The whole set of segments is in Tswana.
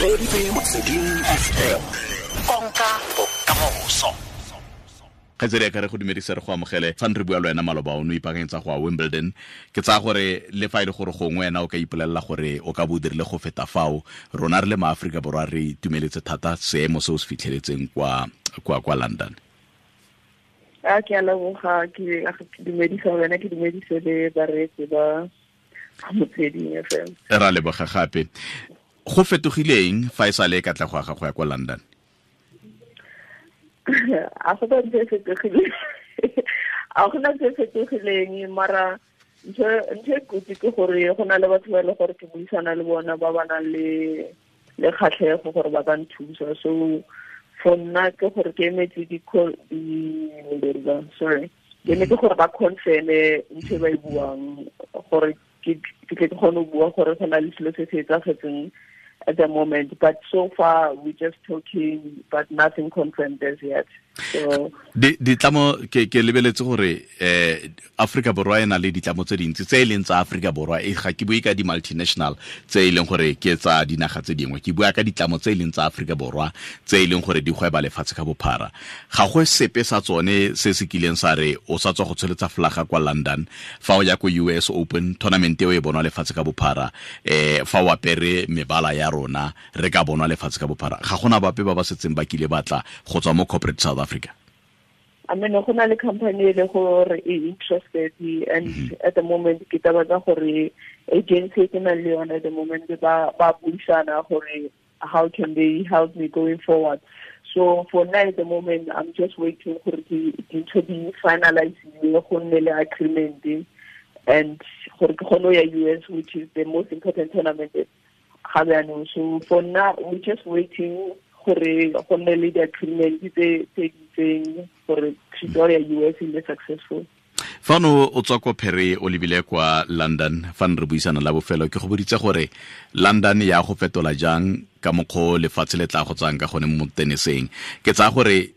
Reeditse Motsweding FM, konka bokamoso. Kgaitsedi ya ka, re go dumedisa, re go amogele. Fa re bua le wena maloba, o ne o ipaakanyetsa go ya Wimbledon. Ke tsaya gore le fa e le gore gongwe wena o ka ipolelela gore o ka bo o dirile go feta fao, rona re le maAforika Borwa re itumeletse thata seemo se o se fitlheletseng kwa London. A ke a leboga, ke dumedisa wena, ke dumedise le bareetsi ba Motsweding FM. Ra leboga gape. Go fetogileng fa e sa le katlego ya gago ya kwa London? A go ba ntse e fetogileng, a gona ntse e fetogileng, mara ntho e kotsi ke gore go na le batho ba e le gore ke buisana le bona ba nang le kgatlhego gore ba ka nthusa. So for nna ke gore ke emetse di, sorry, ke emetse gore ba confirme ntho e ba e buang, gore ke tle ke kgone go bua gore go na le selo se se etsagetseng at the moment. But so far we're just talking, but nothing confirmed as yet. So Ditlamo ke lebeletse gore Africa Borwa e na le ditlamo tse dintsi tse e leng tsa Africa Borwa. E ga ke bue ka di multinational tse e leng gore ke tsa dinaga tse dingwe, ke bua ka ditlamo tse e leng tsa Africa Borwa tse e leng gore di gweba lefatshe ka bophara. Ga go sepe sa tsone se se kileng sa re o sa tswa go tsholetsa flaga kwa London, fa o ya ko US Open tournament eo e bonwa lefatshe ka bophara, fa o apere mebala ya rona re ka bonwa lefatshe ka bophara. Ga gona bape ba ba setseng ba kile batla go tswa mo corporate South Africa? I mean, go na le company e le gore e interested, and at the moment ke taba tsa gore agency ke nang le yone at the moment ba buisana gore how can they help me going forward. So for now, at the moment, I'm just waiting gore dintho di finalize, go nne le agreement and gore ke kgone go ya US, which is the most important tournament ga jaanong. So for now we're just waiting gore go nne le di-agreement tse di itseng gore trip ya US e nne successful. Fa no o tswa ko Paris o lebile kwa London, fa ne re buisana la bofelo ke go boditse gore London ya go fetola jang ka mokgwa lefatshe le tla go tsang ka gone mo teniseng. Ke tsaya gore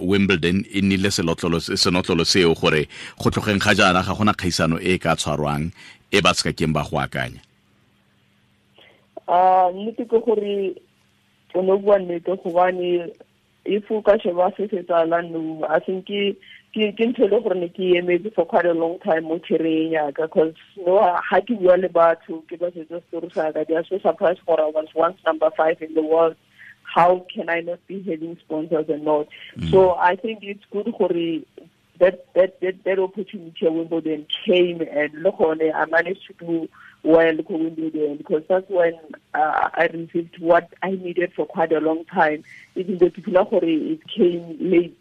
Wimbledon e nnile senotlolo seo gore go tlogeng ga jaana ga gona kgaisano e ka tshwarwang e ba se ka keng ba go akanya. Nnete ke gore o ne o bua nnete, gobane if o ka sheba se se tsalang no, I think ke ntho e le gore ne ke emetse for quite a long time mo career yaka, cause no, ha ke bua le batho, ke ba setsa story sa ka, they are so surprised gore I was once number 5 in the world, how can I not be having sponsors and not? So I think it's good gore that opportunity at Wimbledon came, and look on it, I managed to do well at Wimbledon, because that's when I received what I needed for quite a long time. Even though people are it came late,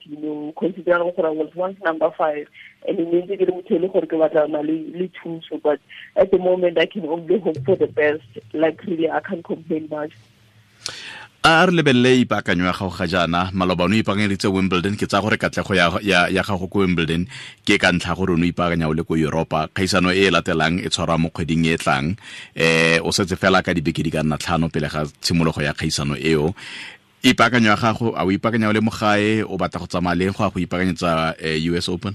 considering I was once number 5, and it means that, but at the moment I can only hope for the best. Like really, I can't complain much. A re lebelele ipaakanyo ya gago ga jaana. Maloba o ne o ipaakanyeditse Wimbledon. Ke tsaya gore katlego ya gago ko Wimbledon ke ka ntlha gore o ne o ipaakanya o le ko Europa. Kgaisano e e latelang e tshwarwa mo kgweding e tlang, o setse fela ka dibeke di ka nna 5 pele ga tshimologo ya kgaisano eo. Ipaakanyo ya gago, a o ipaakanya o le mo gae, o batla go tsamaya leng go ya go ipaakanyetsa US Open?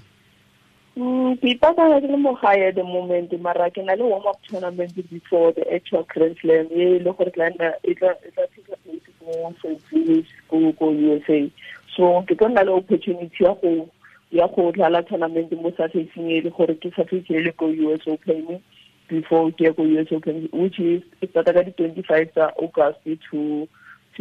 Ke ipaakanya ke le mo gae at the moment, mara ke na le warm up tournament before the actual Grand Slam e le gore tla nna e tla take place ko Saint Louis ko USA. So ke tlo nna le opportunity ya go dlala tournament mo surfacing e le gore ke surface e le ko US Open before ke ya ko US Open, which is e start ka di 25 tsa August to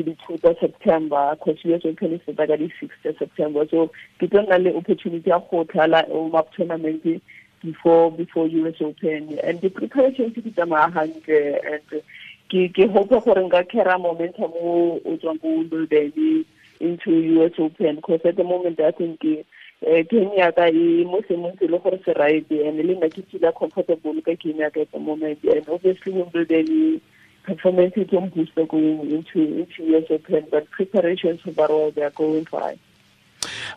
the 2 tsa September, because US Open e start ka di 6 tsa September. So ke tlo nna le opportunity ya go dlala warm up tournament before US Open, and the preparations di tsamaya hantle, and ke hope gore nka carry momentum o tswang ko Wimbledon into US Open, because at the moment I think game ya ka e mo seemong se le gore se right, and le nna ke feel comfortable ka game ya ka at the moment, and obviously Wimbledon performance is on booster going into US Open, but preparations overall they are going fine.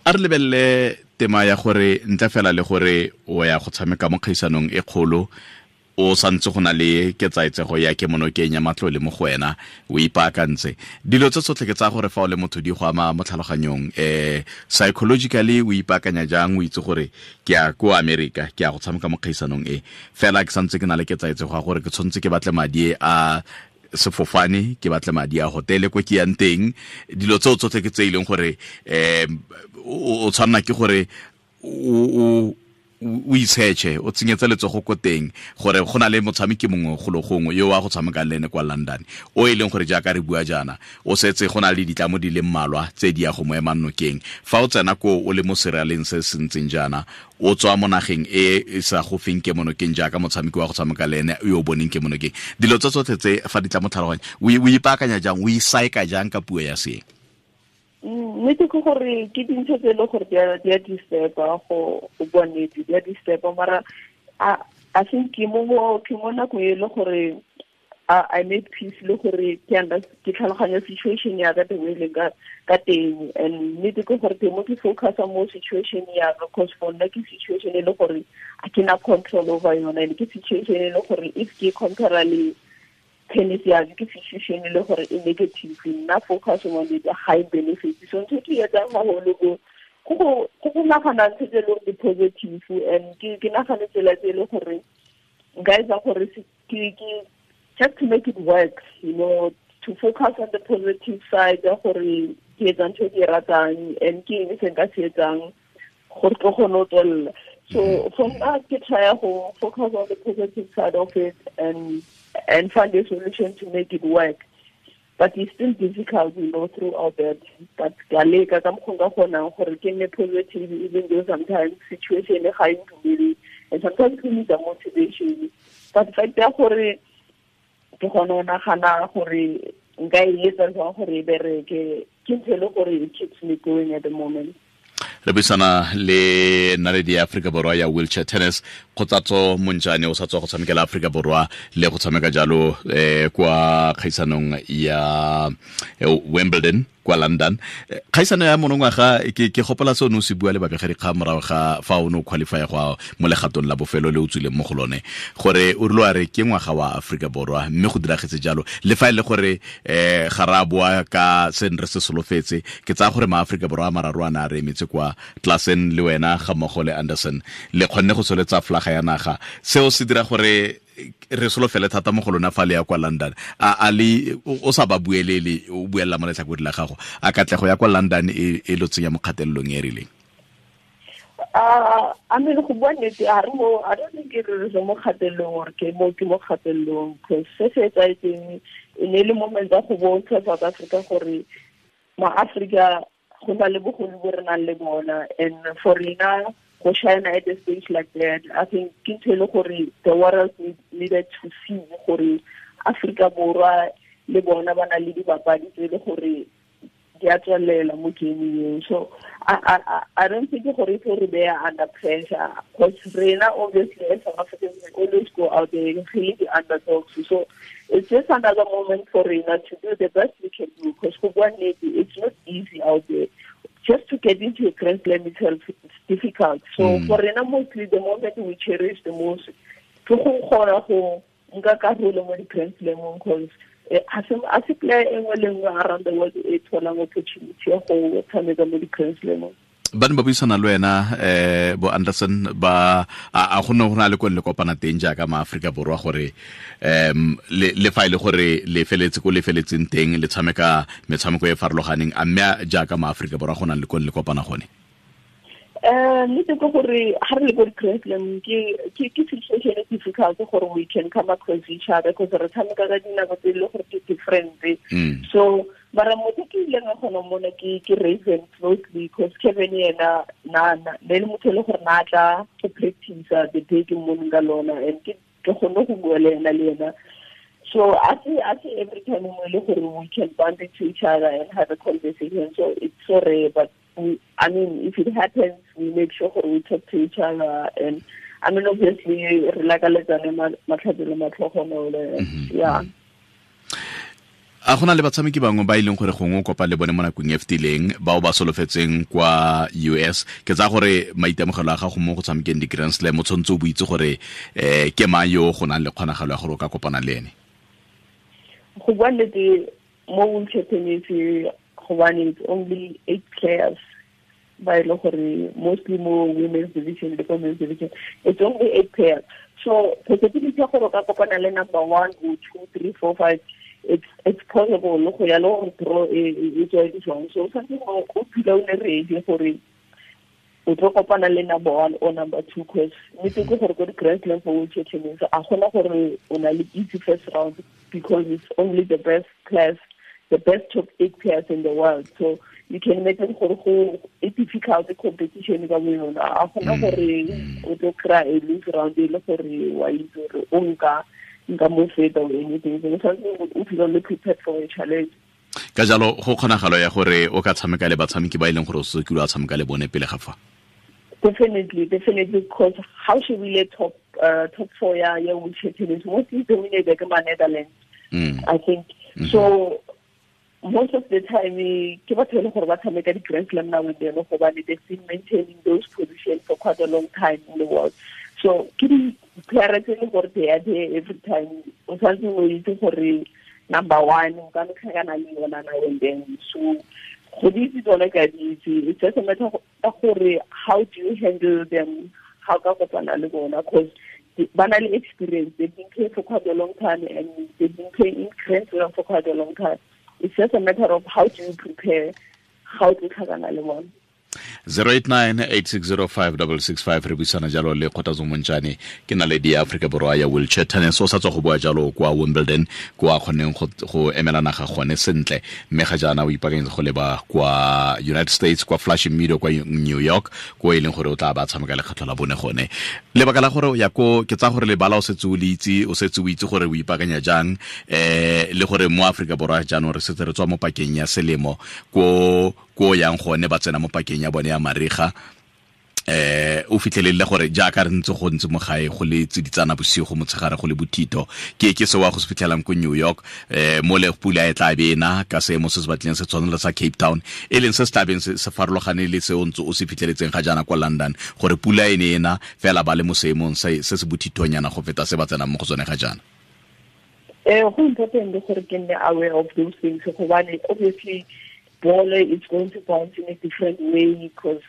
A re lebelele tema ya gore ntle fela le gore o ya go tshameka mo kgaisanong e kgolo, o santse go na le ketsaetsego ya kemonokeng ya matlole mo go wena, o ipaakantse dilo tse tsotlhe. Ke tsaya gore fa o le motho di go ama mo tlhaloganyong, psychologically o ipaakanya jang, o itse gore ke ya ko America, ke ya go tshameka mo kgaisanong e, fela ke santse ke na le ketsaetsego ya gore ke tshwanetse ke batle madi a sefofane, ke batle madi a hotele ko ke yang teng, dilo tseo tsotlhe ke tse e leng gore o tshwanna ke gore o itshetšhe, o tsenyetse letsogo ko teng gore go na le motshameki mongwe golo gongwe yo wa go tshameka le ene kwa London, o e leng gore jaaka re bua jaana o setse go na le ditlamo di le mmalwa tse di ya go mo emang nokeng. Fa o tsena ko o le mo seraleng se se ntseng jaana, o tswa mo nageng e e sa go feng ke monokeng jaaka motshameki wa go tshameka le ene yo o boneng ke monokeng, dilo tse tsotlhe tse fa di tla mo tlhaloganya, o ipaakanya jang, o isaeka jang ka puo ya seeng? Nnete ke gore ke dintho tse e leng gore di a disturba, go bua nnete di a disturba, mara I think ke mo nakong e le gore I made peace le gore ke tlhaloganya situation ya ka the way leng ka teng. And nnete ke gore teng mo ke focusa mo situation ya ka, cause for nna ke situation e le gore a ke na control over yona, and ke situation e le gore if ke compare le tennis ya ke situation e le gore e negative, nna focus on the high benefits. So ntho ke etsang haholo go nagana ntho tse e leng di positive, and ke nagane tsela tse e le gore nka etsa gore ke just to make it work, you know, to focus on the positive side ya gore ke etsa ntho e ke e ratang and ke eng se nka se etsang gore ke kgone ho tswella. So for nna ke try go focus on the positive side of it and find a solution to make it work. But it's still difficult, you know, throughout that. But ka leka ka mokgwa nka kgonang gore ke nne positive, even though sometimes situation e ga e ntumele, and sometimes we need the motivation. But fact ya gore ke kgone go nagana gore nka e etsa jwang gore e bereke, ke ntho e le gore it keeps me going at the moment. Re buisana le naledi ya Afrika Borwa ya wheelchair tennis, Kgothatso Montjane, o sa tswa go tshamekela Afrika Borwa le go tshameka jalo kwa kgaisanong ya Wimbledon kwa London. Kgaisano ya monongwaga ke gopola se o ne o se bua le babegadikgang morago ga fa o ne o qualify go mo legatong la bofelo le o tswileng mo go lone, gore o rile wa re ke ngwaga wa Afrika Borwa, mme go diragetse jalo. Le fa e le gore ga ra boa ka se re se solofetse, ke tsaya gore maAforika Borwa a mararo a ne a re emetse kwa Klassen le wena ga mmogo le Anderson, le kgonne go tsholetsa flaga ya naga. Seo se dira gore re solofele thata mo go lona fa le ya kwa London. A le o sa ba buelele, o buella mo letlhakoreng la gago, a katlego ya kwa London e lo tsenya mo kgatelelong e rileng? I mean, go bua nnete, I don't think re mo kgatelelong or ke mo kgatelelong, because se se etsahetseng e ne le moment ya go bontsha South Africa gore ma-Afrika go na le bogolo bo re nang le bona, and for rena go shine at a stage like that, I think ke ntho e le gore the world needed to see gore Afrika Borwa le bona ba na le dibapadi tse le gore di a tswelela mo game eo. So I don't think gore e tlo re beya under pressure, because rena obviously as South Africans we always go out there and really the underdogs. So it's just another moment for rena to do the best we can do, because go bua nnete, it's not easy out there. Just to get into a Grand Slam itself, it's difficult. So for rena mostly the moment we cherish the most ke go kgona go nka karolo mo di-Grand Slamong, because a se player e nngwe le nngwe around the world e tholang opportunity ya go tshameka mo di-Grand Slamong. Ba ne ba buisana le wena bo Anderson, ba a go ne go na le ko le kopana teng jaaka maAforika Borwa gore le fa e le gore le feletse ko le feletseng teng le tshameka metshameko e farologaneng, a mme jaaka maAforika Borwa go na le ko le kopana gone? Nnete ke gore ha re le ko di-Grand Slam ke situation e difficult gore we can come across each other, because re tshameka ka dinako tse e le gore ke different. So mara motho ke ileng a kgona mona ke Raven closely, because Kevin yena na ne le motho e le gore na tla go practice the day ke mmoneng ka lona, and ke kgone go bua le ena. So I see every time mo e le gore we can bump into each other and have a conversation. So it's so rare, but I mean, if it happens, we make sure we talk to each other, and I mean, obviously, re lakaletsane matlhatsi le matlhogonolo. Yeah. A gona le batshameki bangwe ba e leng gore gongwe o kopa le bone mo nakong e fetileng bao ba solofetseng kwa US? Ke tsaya gore maitemogelo a gago mo go tshamekeng di-Grand Slam o tshwanetse o boitse gore ke mang yo go nang le kgonagalo ya gore o ka kopana le ene. Go bua nnete, mo wheelchair tennis gobane it's only 8 players ba e le gore mostly mo women's division le ko men's division it's only 8 players. So possibility ya gore o ka kopana le number 1 or 2, 3, 4, 5 It's possible go ya le gore draw e tswa di jwang. So something o phela o le ready gore o tlo kopana le number 1 or number 2, cause nnete ke gore ko di-Grand Slam for wheelchair tennis a gona gore o na le easy first round, because it's only the best class, the best top 8 players in the world. So you can imagine gore go e difficult competition ka bo yona. A gona gore o tlo kry-a a lose round e le gore wa itse gore o nka mo feta or anything. So o feel le prepared for a challenge. Ka jalo go kgonagalo ya gore o ka tshameka le batshameki ba e leng gore o se kile wa tshameka le bone pele ga fa. Definitely, because how should we let top 4 ya wheelchair tennis mostly dominated by Netherlands, I think. So most of the time ke batho le gore ba tshameka di Grand Slam now and then, gobane they've been maintaining those positions for quite a long time in the world. So ke di player tse le gore they are there every time. O tshwanetse o itse gore number 1 o ka no tlhakana le yona now and then. So go di itse tsone ka di itse. It's just a matter of gore how do you handle them, how ka kopana le bona, because ba na le experience. They've been playing for quite a long time and they've been playing in Grand Slam for quite a long time. It's just a matter of how do you prepare, how to tlhakana le bona. 089-8605-665 re buisana jalo le Kgothatso Montjane, ke naledi ya Aforika Borwa ya wheelchair tennis. O sa tswa go bua jalo kwa Wimbledon, kwa kgoneng go emela naga gone sentle, mme ga jaana o ipaakanyetsa go leba kwa United States, kwa Flushing Meadow kwa New York, ko e leng gore o tla ba tshameka lekgetlho la bone gone. Lebaka la gore ya ko ke tsa gore lebala o setse o le itse, o setse o itse gore o ipaakanya jang, le gore mo Aforika Borwa jaanong re setse re tswa mo pakeng ya selemo, ko yang gone ba tsena mo pakeng ya bone ya mariga. O fitlhelele gore jaaka re ntse go ntse mo gae go le tsiditsana bosigo motshegare go le bothito, ke se wa go se fitlhelang ko New York, mo le pula e tla be ena ka seemo se se batlileng se tshwana le sa Cape Town, e leng se se tlabeng se farologane le se o ntse o se fitlheletseng ga jaana kwa London, gore pula e ne ena fela ba le mo seemong se se bothithonyana go feta se ba tsenang mo go tsone ga jaana. Go important gore ke nne aware of those things, gobane obviously ball is going to bounce in a different way because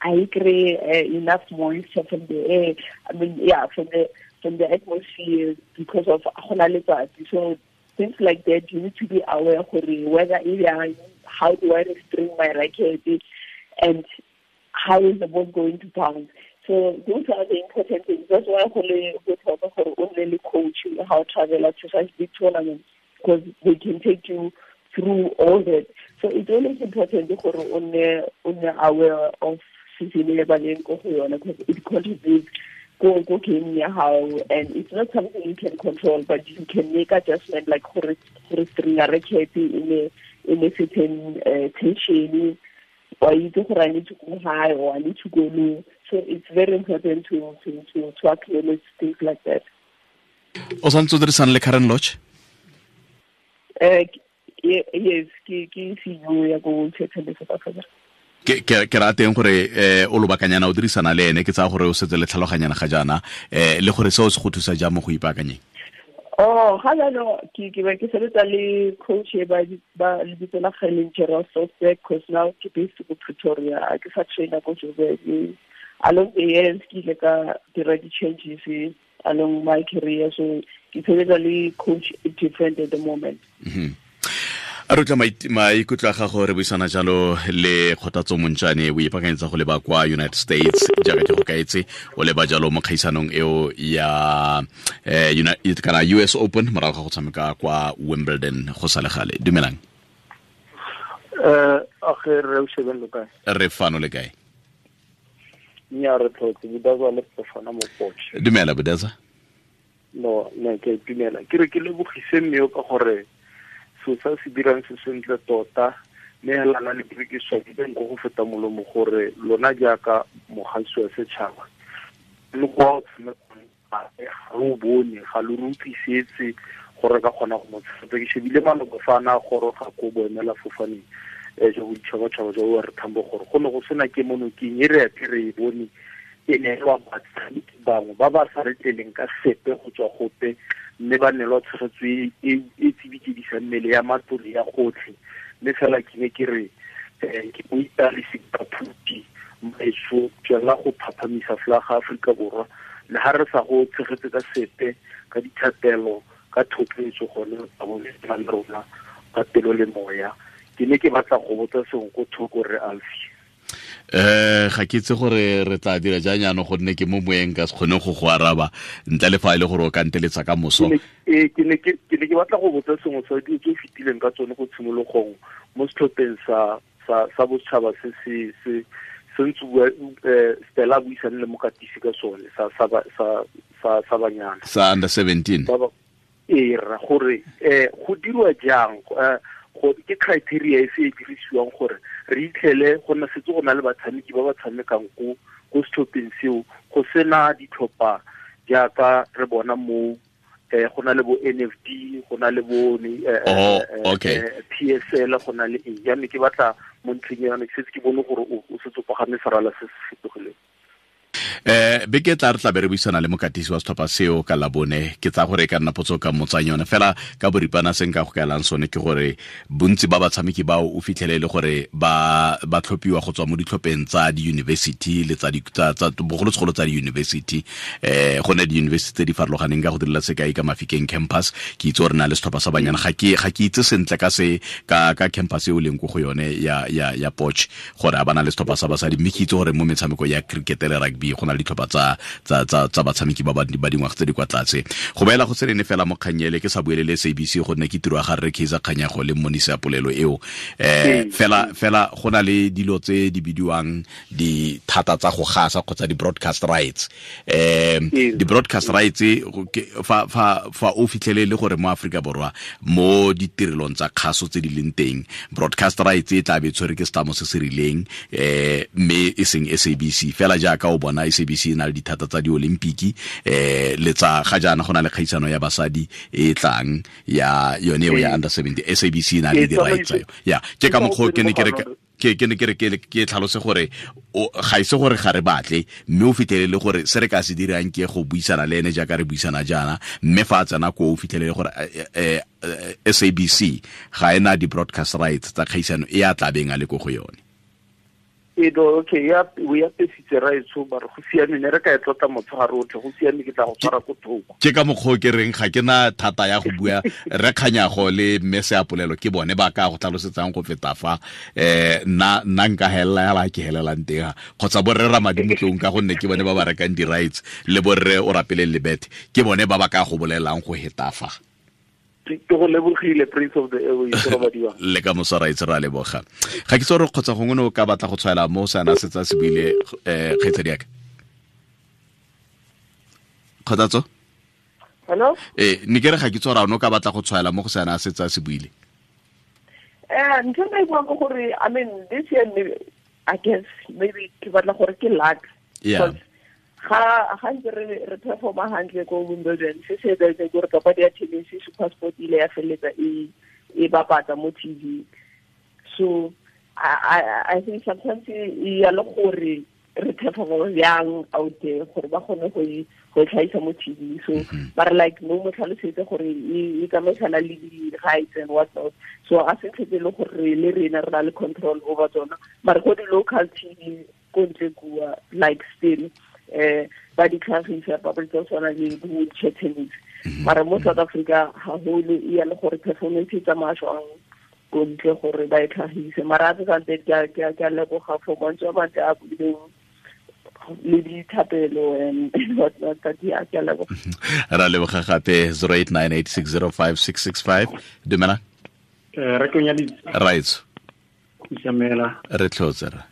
I create enough moisture from the air. I mean, yeah, from the atmosphere because of letsatsi. So things like that, you need to be aware whether how do I restrain my racket and how is the ball going to bounce. So those are the important things. That's why only coach how travel to such big tournaments, because they can take you through all that. So it's always important to be aware of season because it contributes go game how, and it's not something you can control, but you can make adjustment like string a racket in a certain tension, or you do I need to go high or I need to go low. So it's very important to acknowledge things like that. O santse o dirisana le Karen Lodge? Yes, ke CEO ya go Tennis South Africa. Ke rateng gore o lobakanyana o dirisana le ene, ke tsaya gore o setse le tlhaloganyana ga jaana, le gore seo se go thusa jang mo go ipaakanyeng? Oh, ga jaanong ke ke sebetsa le coach e ba lebitso la Kgaeleng Gerald Sosberg, because now ke based ko Pretoria, ke sa trainer ko Joburg. Along the years ke ile ka dira di-changes along my career, so ke sebetsa le coach different at the moment. Mm-hmm. A re tla maikutlo a gago re buisana jalo le Kgothatso Montjane, o ipaakanyetsa go leba kwa United States jaaka ke go kaetse, o leba jalo mo kgaisanong eo ya kana US Open morago ga go tshameka kwa Wimbledon go sa le gale. Dumelang. Re o shebeng lo kae? Re fano le kae? Nya re tlotse Budaza le Fofana mo Potch. Dumela Budaza. No, ne ke dumela. Ke re ke lebogise mme ka gore so sa se dirang se sentle tota, mme hela na le ke swabile nko go feta molomo gore lona jaaka mogasi wa setšhaba le go ga o bone ga lo utlwisetse gore ka kgona go mo tshepa. Ke shebile maloba fa na goroga ko boemela fofaneng jo boditšhabatšhaba jwa re Thambo gore go ne go sena ke monokeng e re ape re e bone e neelwa batshameki bangwe ba ba sa re tleleng ka sepe go tswa gope, mme ba neelwa tshegetso e tsibikedisa mmele ya matlole ya gotlhe. Mme fela ke ne ke re ke mo italise ka phuti maeso tswela go phaphamisa folaga Aforika Borwa, le ha re sa go tshegetse ka sepe ka dithapelo Ka thotloetso gone ba bone ba le rona ka pelo le moya. Ke ne ke batla go botsa sengwe ko thoko re Alfie. Ga ke itse gore re tla dira jang jaanong gonne ke mo moeng ka se kgone go go araba ntle le fa e le gore o ka nteletsa ka moso. Ke ne ke batla go botsa sengwe sa dilo tse o fetileng ka tsone go tshimologong mo setlhopheng sa bosetšhaba se se se ntse bua Stella buisane le mokatisi ka sone sa banyana sa under 17. Ee rra, gore go dirwa jang, go ke criteria e se e dirisiwang gore re itlhele go nna setse go na le batshameki ba ba tshamekang ko setlhopheng seo, go sena ditlhopha jaaka re bona mo go na le bo NFD, go na le bo PSL, go na le eng. Jaanong ke batla mo ntlheng ya ke setse ke bone gore o setse o pagame serala se se fetogileng. Beke tla re tla be re buisana le mokatisi wa setlhopha seo ka Labone. Ke tsa gore e ka nna potso ka motsang yone fela ka boripana se nka go kaelang sone ke gore bontsi ba batshameki bao o fitlhele le gore ba tlhophiwa go tswa mo ditlhopheng tsa di-university le tsa bogolosegolo tsa di-university. Go ne di-university tse di farologaneng ka go direla sekai ka Mafikeng campus, ke itse gore na le setlhopha sa banyana. Ga ke itse sentle ka se ka campus e o leng ko go yone ya Potch gore a bana le setlhopha sa basadi, mme ke itse gore mo metshameko ya cricket le rugby go na le ditlhopha tsa batshameki ba ba dingwaga tse di kwa tlase. Go beela go tsenene fela mo kganyele ke sa buelele SABC gonne ke tiro ya ga rre Kaizer Kganyago le mmonisi ya polelo eo. Fela go na le dilo tse di bidiwang dithata tsa go gasa kgotsa di-broadcast rights. Di-broadcast rights fa o fitlhele le gore mo Aforika Borwa mo ditirelong tsa kgaso tse di leng teng, broadcast rights e tla be tshwere ke setlamo se se rileng, mme e seng SABC. Fela jaaka o bona SABC e na le dithata tsa di-Olimpiki, le tsa ga jaana go na le kgaisano ya basadi e tlang ya yone eo ya under 70, SABC e na le di-rights tsa yone. Ya ke ka mokgwa ke ne ke re ke tlhalose gore ga ise gore ga re batle, mme o fitlhele le gore se re ka se dirang ke go buisana le ene jaaka re buisana jaana, mme fa a tsena ko o fitlhele le gore SABC ga ena di-broadcast rights tsa kgaisano e a tlabeng a le ko go yone. Okay, ya o ya pesitse raetsho ba re go siame, ne re ka e tlotla motshegare otlhe, go siame, ke tla go tshwara ko thoko. Ke ka mokgwa ke reng ga ke na thata ya go bua re Kganyago le mme Seapolelo ke bone ba ka go tlhalosetsang go feta fa. Nna nka helela ya la ke helelang teng kgotsa borre Ramadimo Tlong ka gonne ke bone ba ba rekang di-rights le borre o rapeleng lebete ke bone ba ba ka go bolelang go heta fa. Ke go lebogile Prince of the Airways robadiwa. Le ka moso ra itse ra leboga. Ga ke tsore kgotsa gongwe o ka batla go tshwaela mo sana se tsa se buile kgaitsadi yaka. Kgothatso? Hello? Ne ke re ga ke tsore o ka batla go tshwaela mo go sana se tsa se buile. Ntho e buang ke gore I mean this year maybe, I guess maybe ke batla gore ke luck. Yeah. Ga ntse re performa hantle ko Wimbledon, se se etsahetseng ke gore papadi ya tennis SuperSport ile ya feleletsa e bapatsa mo TV. So I think sometimes e ya le gore re performa jang out there gore ba kgone go e tlhahisa mo TV. So ba re like no mo tlhalosetse gore e tsamaisana le di-rights and what not. So a se tlhetse le gore le rena re na le control over tsona, mara go di-local TV ko ntle kua like still ba di tlhagisa papadi tsa tshwana le wheelchair tennis. Mara mo South Africa haholo e ya le gore performance e tsamaya jwang ko ntle gore ba e tlhagise. Mara a tse ke a leboga for mantswe a mantle a buileng le dithapelo and what not, ke a leboga. Ra leboga gape. 0898605665. Dumela. Re konyaditse. Right. Isamela. Re tlhotse ra.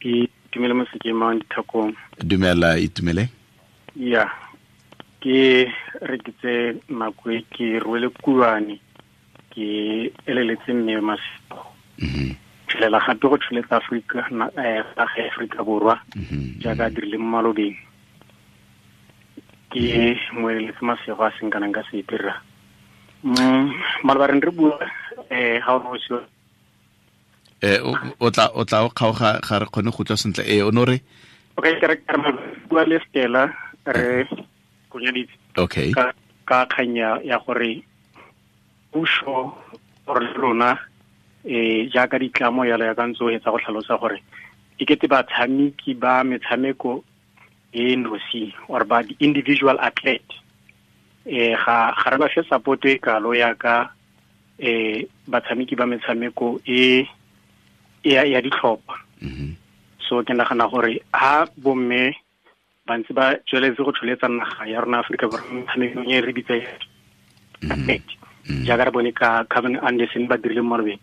Ke dumela mosekemang dithakong. Dumela itumele. Ya. Ke re ke tse nako e ke rwele kuane ke eleletse mme masego. Tshelela gape go tsheletsa Afrika Afrika Borwa jaaka dirile mo malobeng. Ke mo eleletse masego a seng kana ka sepe rra. Maloba re bua ga o se o tla o kgaoga ga re kgone go utlwa sentle. O no re okay, ke re bua le Stella re konyaditse. Okay. Ka kganya ya gore puso gore rona jaaka ditlamo yalo ya ka ntse o etsa go tlhalosa gore e kete batshameki ba metshameko e nosi or ba di-individual athlete Ga re ba fe support e kalo ya ka batshameki ba metshameko e ya ditlhopha. So ke nagana gore ha bomme ba ntse ba tsweletse go tsholetsa naga ya rona Afrika Borwa metshamekong e re bitsa jaaka re bone ka Kevin Anderson ba dirile mo malobeng,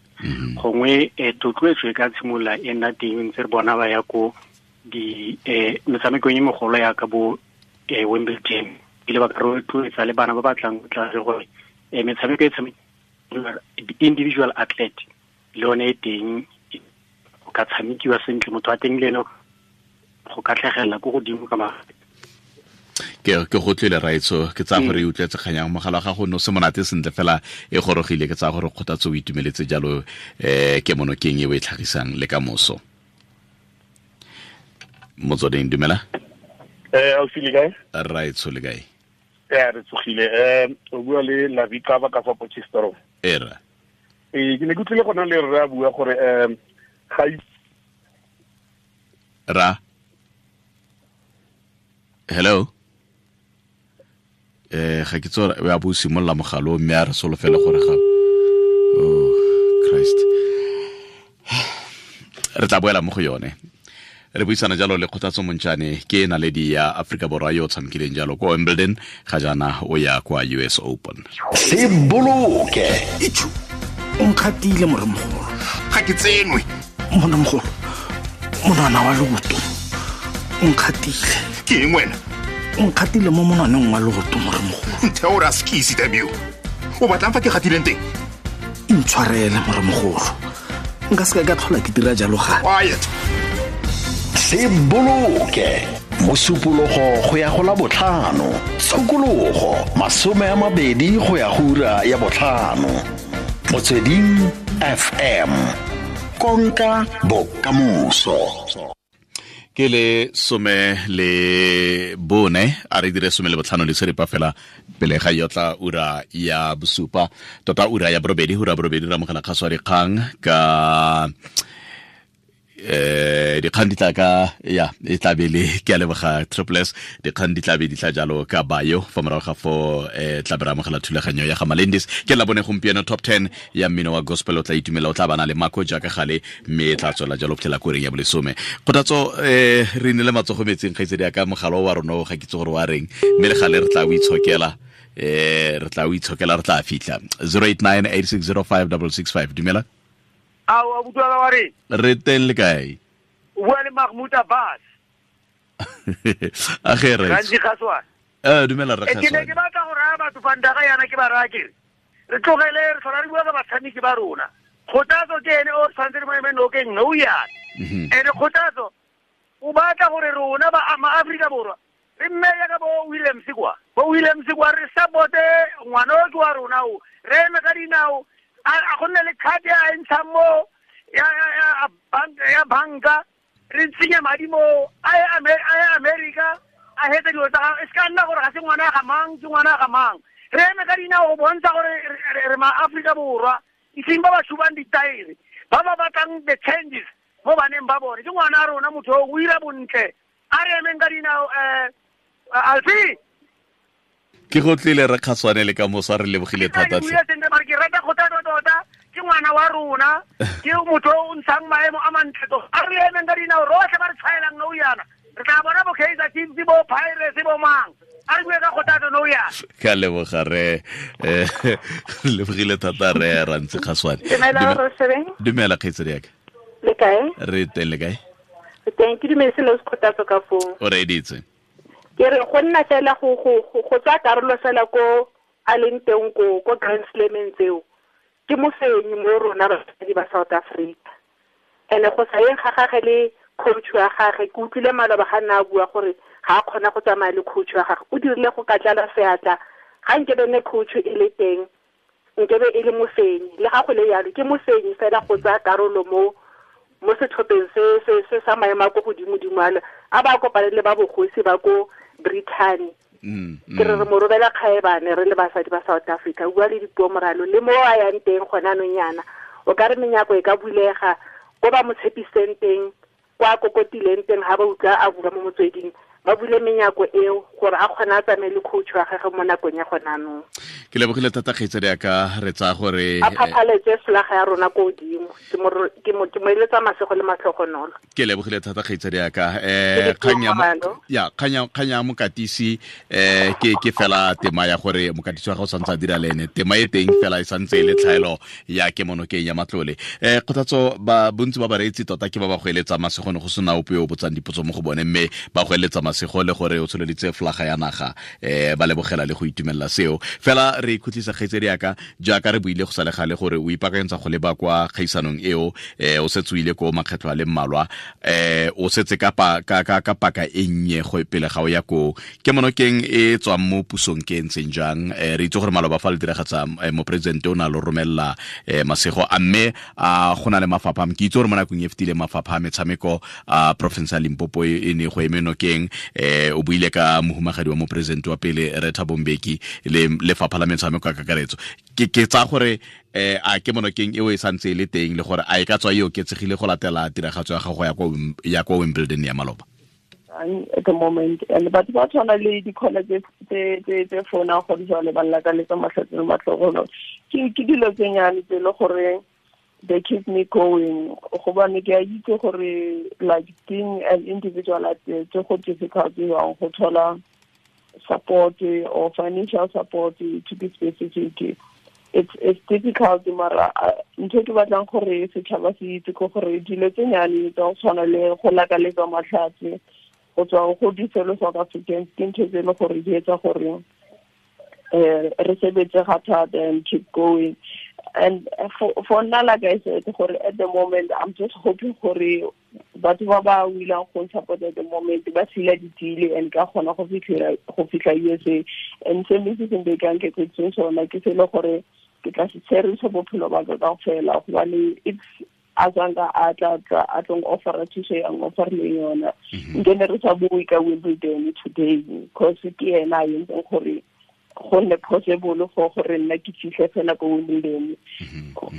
gongwe thotloetso e ka tshimolola e nna teng ntse re bona ba ya ko di metshamekong e megolo ya ka bo Wimbledon, ile ba ka rotloetsa le bana ba batlang go tla re gore metshameko e tshamekiwa individual athlete le yone e teng, go ka tshamekiwa sentle, motho a teng le ene go ka tlhagelela ko godimo ka mafatshe. Ke go tlile raitso, ke tsaya gore e utlwetse kganyang mogala wa gago no se monate sentle fela e gorogile, ke tsaya gore Kgothatso o itumeletse jalo ke monokeng e o e tlhagisang le ka moso. Motsweding, dumela. Ausi le kae? Raitso le kae? Re tsogile. O bua le Lavika ba ka fa Potchefstroom. Era. Ke ne ke utlwile gona le rre a bua gore ga ra. Hello. Ga ke tsora ya bo simolla mogalo mme a re solofela gore ga oh Christ re tla boela mo go yone. Re buisana jalo le Kgothatso Montjane, ke naledi ya Afrika Borwa yo o tshamekileng jalo ko Wimbledon, ga jaana o ya kwa US Open. Se boloke. Itjhu, o nkgatile moremogolo. Ga ke tsenwe. Moremogolo, monwana wa leoto o nkgatile. Ke eng wena? O nkgatile mo monwaneng wa leoto moremogolo. Ntheo ra skisi damn you. O batlang fa ke gatileng teng? Intshwarele moremogolo. Nka se ka tlhola ke dira jalo gape. Quiet. Se boloke. Mosupologo go ya go la botlhano, tshokologo 20 go ya go ura ya botlhano. Motsweding FM. Konka bokamoso. Ke le 14, a re dire 15 le seripa fela pele ga yotla ura ya bosupa, tota ura ya borobedi, ura borobedi ra mogela kgaso ya dikgang ka dikgang di tla ka ya e tla be le ke a leboga Triple S, dikgang di tla be di tla jalo ka bayo fa morago ga fo tla be re amogela thulaganyo ya ga Malendis. Ke la bone gompieno top 10 ya mmino wa gospel, o tla itumela, o tla bana le Mako jaaka gale, mme e tla tswela jalo phela koreng ya bolesome. Kgothatso re ne le matsogo metseng kgaitsedi ya ka mogalo wa rona o ga kitse gore wa reng, mme le gale re tla o itshokela, re tla o itshokela, re tla fitlha. 0898605665. Dumela. Awa butlwa wa re. Re teng le kae? O bua le Mahmoud Abbas. A ge re. Gantsi Kgaswane. Dumela re Kgaswane. Ke ne ke batla go raya batho fa ndaga yana ke ba raya ke re. Re tlogele re tlhola re bua ka batshameki ba rona. Kgothatso ke ene o tshwanetse re mo eme nokeng nou yana. Ene Kgothatso o batla gore rona ba ama Afrika Borwa re mmeye ka bo Williams kwa. Bo Williams kwa re supporte ngwana o ke wa rona o. Re eme ka dinao. A go nne le card ya ntshang mo ya banka, re tsenye madi mo a ye America, a hetse dilo tsa gagwe. E se ka nna gore ga se ngwana ga mang, ke ngwana ga mang. Re eme ka dinao go bontsha gore re ma Afrika Borwa, eseng ba ba shubang ditaere, ba ba batlang the changes mo baneng ba bone. Ke ngwana a rona motho o ira bontle. A re emeng ka dinao Alfie. Ke go tlile re Kgaswane le ka moso, re lebogile thata. Ke rata Kgothatso tota, ke ngwana wa rona, ke motho o ntshang maemo a mantle tota. A re emeng ka dinao rotlhe ba re tshwaelang nou yana. Re tla bona bo Kaizer Chiefs, bo Pirates, bo mang. A re bue ka Kgothatso nou yana. Ke a leboga re lebogile thata re Rantsi Kgaswane. Dumela kgaitsedi ya ka. Le kae? Re teng le kae? Re teng, ke dumetse le Kgothatso ka foo. O reditse. Ke re go nna fela go tsaya karolo fela ko a leng teng ko Grand Slameng tseo, ke mofenyi mo rona basadi ba South Africa. Ene go sa yeng ga gage le coach wa gage, ke utlwile maloba ga nna a bua gore ga a kgona go tsamaya le coach wa gage, o dirile go ka tlala seatla. Ga nkebe ne coach e le teng, nkebe e le mofenyi. Le ga go le yalo, ke mofenyi fela go tsaya karolo mo setlhopheng se sa maemo a ko godimo-dimo ale, a ba kopane le ba bogosi ba ko Britain. Ke re re mo robela kgaebane re le basadi ba South Africa, bua le dipuo moralo le mo a yang teng gona anong yana, o ka re menyako e ka bulega ko ba mo tshepiseng teng, kwa kokotileng teng, ha ba utlwa a bua mo motsweding, Ba bule menyako eo gore a kgone a tsamaye le coach wa gagwe mo nakong ya gone anong. Ke lebogile thata kgaitsadi ya ka, re tsaya gore a phaphaletse folaga ya rona ko godimo. Ke mo eletsa masego le matlhogonolo. Ke lebogile thata kgaitsadi ya ka. Kgang ya mokatisi ke fela tema ya gore mokatisi wa gago o santse a dira le ene, tema e teng fela e santse e le tlhaelo ya kemonokeng ya matlole. Kgothatso, ba bontsi ba bareetsi tota ke ba ba go eletsa masego, ne go sena ope yo o botsang dipotso mo go bone, mme ba go eletsa masego le gore o tsholeditse folaga ya naga, ba lebogela le go itumelela seo. Fela re ikhutlisa kgaitsedi ya ka, jaaka re buile go sa le gale gore o ipaakanyetsa go leba kwa kgaisanong eo, o setse o ile ko makgetlho a le mmalwa, o setse ka paka e nnye go pele ga o ya ko kemonokeng e tswang mo pusong ke ntseng jang. Re itse gore maloba fa le diragatsa moporesidente o na lo romelela masego, a mme a go na le mafapha, ke itse gore mo nakong e fetileng mafapha a metshameko a province ya Limpopo e ne go eme nokeng, o buile ka mohumagadi wa moporesidente wa pele Rre Thabo Mbeki le lefapha la metshameko ka kakaretso. Ke tsaya gore a kemonokeng eo e santse e le teng, le gore a e ka tswa e oketsegile go latela tiragatso ya gago ya kwa Wimbledon ya maloba? At the moment, and batho ba tshwana le di-college tse founang go jwale ba llakaletsa matlhatsi le matlhogonolo, ke dilo tse nyane tse le gore they keep me going, gobane ke a itse gore like being an individual athlete go difficult jwang go thola support or financial support, to be specific. It's difficult, mara ntho ke batlang gore setšhaba se itse ke gore dilo tse nyane tsa go tshwana le go lakaletsa matlhatsi go tswa go di-fellow South Africans ke ntho tse e le gore di etsa gore re sebetse ga thata and keep going. And for nna, like I said, gore at the moment I'm just hoping gore batho ba ba willing go support at the moment ba sila ditile and ka kgona go fitlha USA. And se mme se seng ka nketsetseng sona ke se le gore ke tla se tsherisa bophelo ba ka kaofela, gobane if a tsanga a tla a tlong offer thuso ya offer le yona, nke ne re sa bue ka Wimbledon today, because ke ena a entseng gore go nne possible for gore nna ke fitlhe fela ko Wimbledon,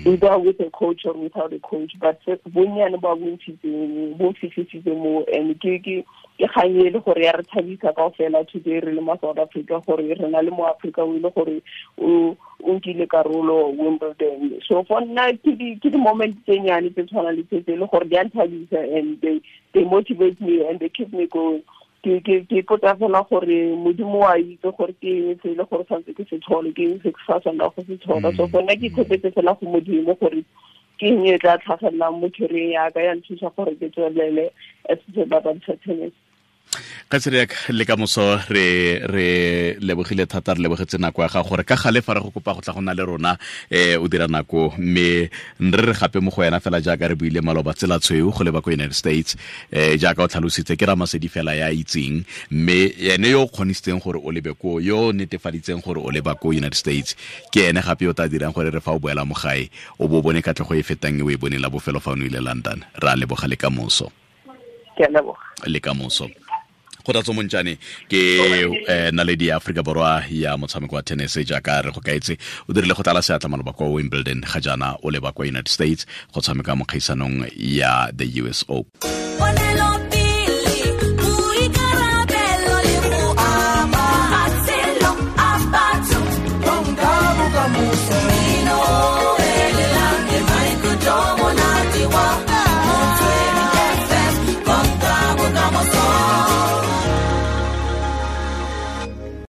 either with a coach or without a coach, but bonnyane ba bontshitseng bo fitlhisitse mo. And ke kgang e le gore ya re thabisa kaofela today re le mo South Africa, gore re na le mo Africa o ile gore o nkile karolo Wimbledon. So for nna ke di-moment tse nyane tse tshwanang le tse le gore di a nthabisa, and they motivate me and they keep me going. Ke ipotsa fela gore Modimo wa itse gore ke eng se le gore tshwanetse ke se thole, ke eng se ke sa tshwanela go se thola. So for nna ke ikgopetse fela go Modimo gore ke eng e tla tlhagelelang mo career ya ka ya nthusa gore ke tswelele as sebapadi sa tennis. Kgaitsedi le ka moso re lebogile thata, re lebogetse nako ya gago gore ka gale fa re go kopa go tla go na le rona o dira nako, mme re gape mo go wena fela jaaka re buile maloba tsela tshweu go leba ko United States, jaaka o tlhalositse ke Ramasedi fela ya itseng, mme ene yo o kgonisitseng gore o lebe ko, yo o netefaditseng gore o leba ko United States, ke ene gape yo tla dirang gore re fa o boela mo gae o bo bone katlego e fetang e o e boneng la bofelo fa o ne ile London. Re a leboga le ka moso. Ke a leboga. Le ka moso. Kgothatso Montjane ke naledi ya Afrika Borwa ya motshameko wa tennis, jaaka re go kaetse o dirile go tlala seatla maloba kwa Wimbledon, ga jaana o leba kwa United States go tshameka mo kgaisanong ya the US Open.